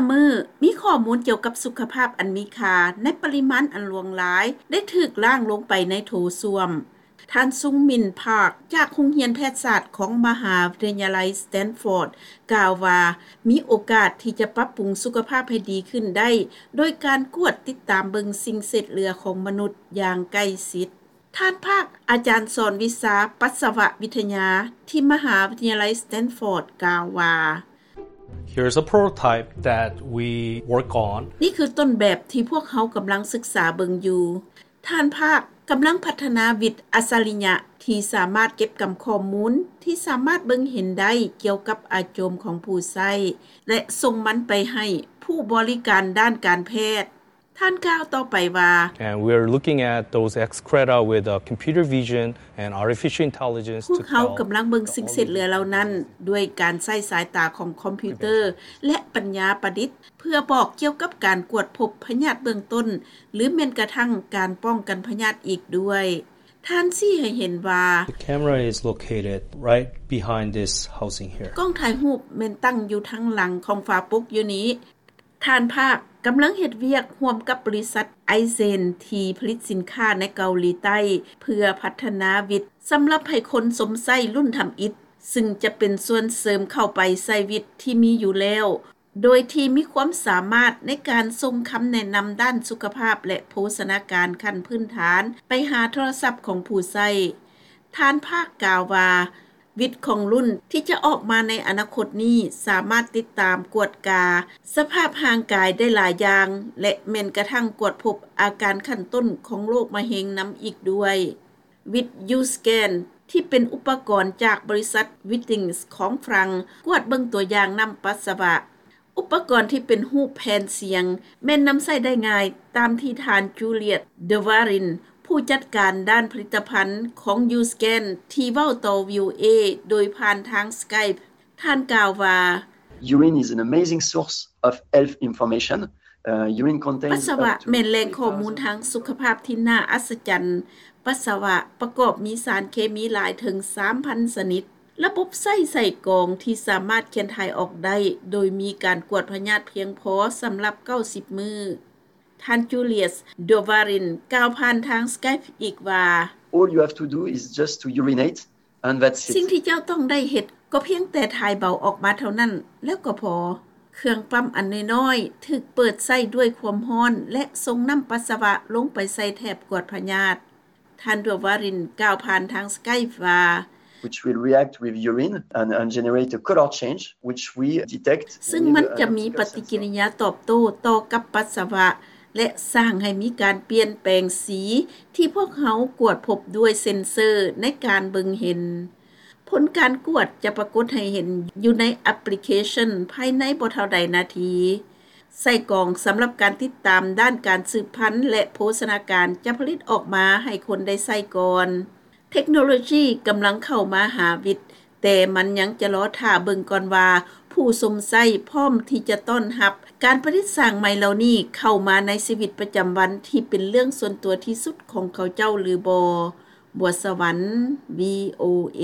ມື້ ມີຂໍ້ມູນກ່ຽວກັບສຸຂະພາບອັນມີຄ່າໃນປະລິມານອັນຫຼວງຫຼາຍ ໄດ້ຖືກລ້າງລົງໄປໃນໂຖສ້ວມ. ທ່ານ ຊຸງມິນ ພາກ ຈາກໂຮງຮຽນແພດສາດຂອງມະຫາວິທະຍາໄລສະແຕນຟອດ ກ່າວວ່າ ມີໂອກາດທີ່ຈະປັບປຸງສຸຂະພາບໃຫ້ດີຂຶ້ນໄດ້ ໂດຍການກວດຕິດຕາມເບິ່ງສິ່ງເສດເຫຼືອຂອງມະນຸດຢ່າງໃກ້ຊິດ. ທ່ານພາກ ອາຈານສອນວິຊາປັດສະວະວິທະຍາທີ່ມະຫາວິທະຍາໄລສະແຕນຟອດ ກ່າວວ່າ Here's a prototype that we work on. ນີ້ຄືຕົ້ນແບບທີ່ພວກເຮົາກຳລັງສຶກສາເບິ່ງຢູ່. ທ່ານພາກ ກຳລັງພັດທະນາວິດອັດສະລິຍະທີ່ສາມາດເກັບກຳຂໍ້ມູນທີ່ສາມາດເບິ່ງເຫັນໄດ້ກ່ຽວກັບອາໂຈມຂອງຜູ້ໃຊ້ ແລະ ສົ່ງມັນໄປໃຫ້ຜູ້ບໍລິການດ້ານການແພດ. ທ່ານກ່າວຕໍ່ໄປວ່າ And we're looking at those excreta with uh, computer vision and artificial intelligence. ພວກເຮົາກຳລັງເບິ່ງສິ່ງເສດເຫຼືອເຫຼົ່ານັ້ນ ດ້ວຍການໃຊ້ສາຍຕາຂອງຄອມພິວເຕີ ແລະ ປັນຍາປະດິດ ເພື່ອບອກກ່ຽວກັບການກວດພົບພະຍາດເບື້ອງຕົ້ນ ຫຼື ແມ່ນກະທັ້ງການປ້ອງກັນພະຍາດອີກດ້ວຍ. ທ່ານຊີ້ໃຫ້ເຫັນວ່າ The camera is located right behind this housing here. ກ້ອງຖ່າຍຮູບແມ່ນຕັ້ງຢູ່ທາງຫຼັງຂອງຝາປົກຢູ່ນີ້. ທ່ານພາກ ກຳລັງເຮັດວຽກຮ່ວມກັບບໍລິສັດໄອເຊນທີ່ຜະລິດສິນຄ້າໃນເກົາຫຼີໃຕ້ ເພື່ອພັດທະນາວິດສຳລັບໃຫ້ຄົນຊົມໃຊ້ລຸ້ນທຳອິດ ຊຶ່ງຈະເປັນສ່ວນເສີມເຂົ້າໄປໃສ່ວິດທີ່ມີຢູ່ແລ້ວ ໂດຍທີ່ມີຄວາມສາມາດໃນການສົ່ງຄຳແນະນຳດ້ານສຸຂະພາບ ແລະ ໂພຊະນາການຂັ້ນພື້ນຖານໄປຫາໂທລະສັບຂອງຜູ້ໃຊ້. ທ່ານພາກກ່າວວ່າ ວິດຂອງລຸ້ນທີ່ຈະອອກມາໃນອະນາຄົດນີ້ ສາມາດຕິດຕາມກວດກາສະພາບຮ່າງກາຍໄດ້ຫຼາຍຢ່າງ ແລະ ແມ່ນກະທັ່ງກວດພົບອາການຂັ້ນຕົ້ນຂອງໂລກມະເຮັງນຳອີກດ້ວຍ. ວິດ U-Scan ທີ່ເປັນອຸປະກອນຈາກບໍລິສັດ Withings ຂອງຝຣັ່ງ ກວດເບິ່ງຕົວຢ່າງນ້ຳປັດສະວະ. ອຸປະກອນທີ່ເປັນຮູບແຜ່ນສຽງ ແມ່ນນຳໃຊ້ໄດ້ງ່າຍ ຕາມທີ່ທ່ານ Juliet Dewariene ຜູ້ຈັດການດ້ານຜະລິດຕະພັນຂອງ U-Scan ທີ່ເວົ້າຕໍ່ VOA ໂດຍຜ່ານທາງ Skype. ທ່ານກ່າວວ່າ Urine is an amazing source of health information. Uh, urine contains ປັດສະວະແມ່ນແຫຼ່ງຂໍ້ມູນທາງສຸຂະພາບທີ່ໜ້າອັດສະຈັນ. ປັດສະວະປະກອບມີສານເຄມີຫຼາຍເຖິງສາມພັນຊະນິດ. ລະບົບໃຊ້ໃສ່ກອງທີ່ສາມາດຂຽນຖ່າຍອອກໄດ້ ໂດຍມີການກວດພະຍາດພຽງພໍສຳລັບເກົ້າສິບມື້. ທ່ານ Juliet Dewariene ກ່າວຜ່ານທາງ Skype ອີກວ່າ All you have to do is just to urinate and that's it. ສິ່ງທີ່ເຈົ້າຕ້ອງໄດ້ເຮັດກໍພຽງແຕ່ຖ່າຍເບົາອອກມາເທົ່ານັ້ນ ແລ້ວກໍພໍ. ເຄື່ອງປ້ຳອັນນ້ອຍໆ ຖືກເປີດໃຊ້ດ້ວຍຄວາມຮ້ອນ ແລະ ສົ່ງນ້ຳປັດສະວະລົງໄປໃສ່ແຖບກວດພະຍາດ. ທ່ານ Dewariene ກ່າວຜ່ານທາງ Skype ວ່າ which will react with urine and, and generate a color change, which we detect. ຊຶ່ງມັນຈະມີປະຕິກິລິຍາຕອບໂຕ້ຕໍ່ກັບປັດສະວະ ແລະ ສ້າງໃຫ້ມີການປ່ຽນແປງສີ ທີ່ພວກເຮົາກວດພົບດ້ວຍເຊັນເຊີໃນການເບິ່ງເຫັນ. ຜົນການກວດຈະປາກົດໃຫ້ເຫັນຢູ່ໃນແອັບພລິເຄຊັນພາຍໃນບໍ່ເທົ່າໃດນາທີ. ໃສ່ກອງສຳລັບການຕິດຕາມດ້ານການສືບພັນ ແລະ ໂພຊະນາການຈະຜະລິດອອກມາໃຫ້ຄົນໄດ້ໃຊ້ກ່ອນ. ເທັກໂນໂລຊີກຳລັງເຂົ້າມາຫາວິດ, ແຕ່ມັນຍັງຈະລໍຖ້າເບິ່ງກ່ອນວ່າ ຜູ້ຊົມໃຊ້ພ້ອມທີ່ຈະຕ້ອນຮັບການປະດິດສ້າງໃໝ່ເຫຼົ່ານີ້ເຂົ້າມາໃນຊີວິດປະຈຳວັນທີ່ເປັນເລື່ອງສ່ວນຕົວທີ່ສຸດຂອງເຂົາເຈົ້າຫຼືບໍ່. ບົວສະຫວັນ VOA.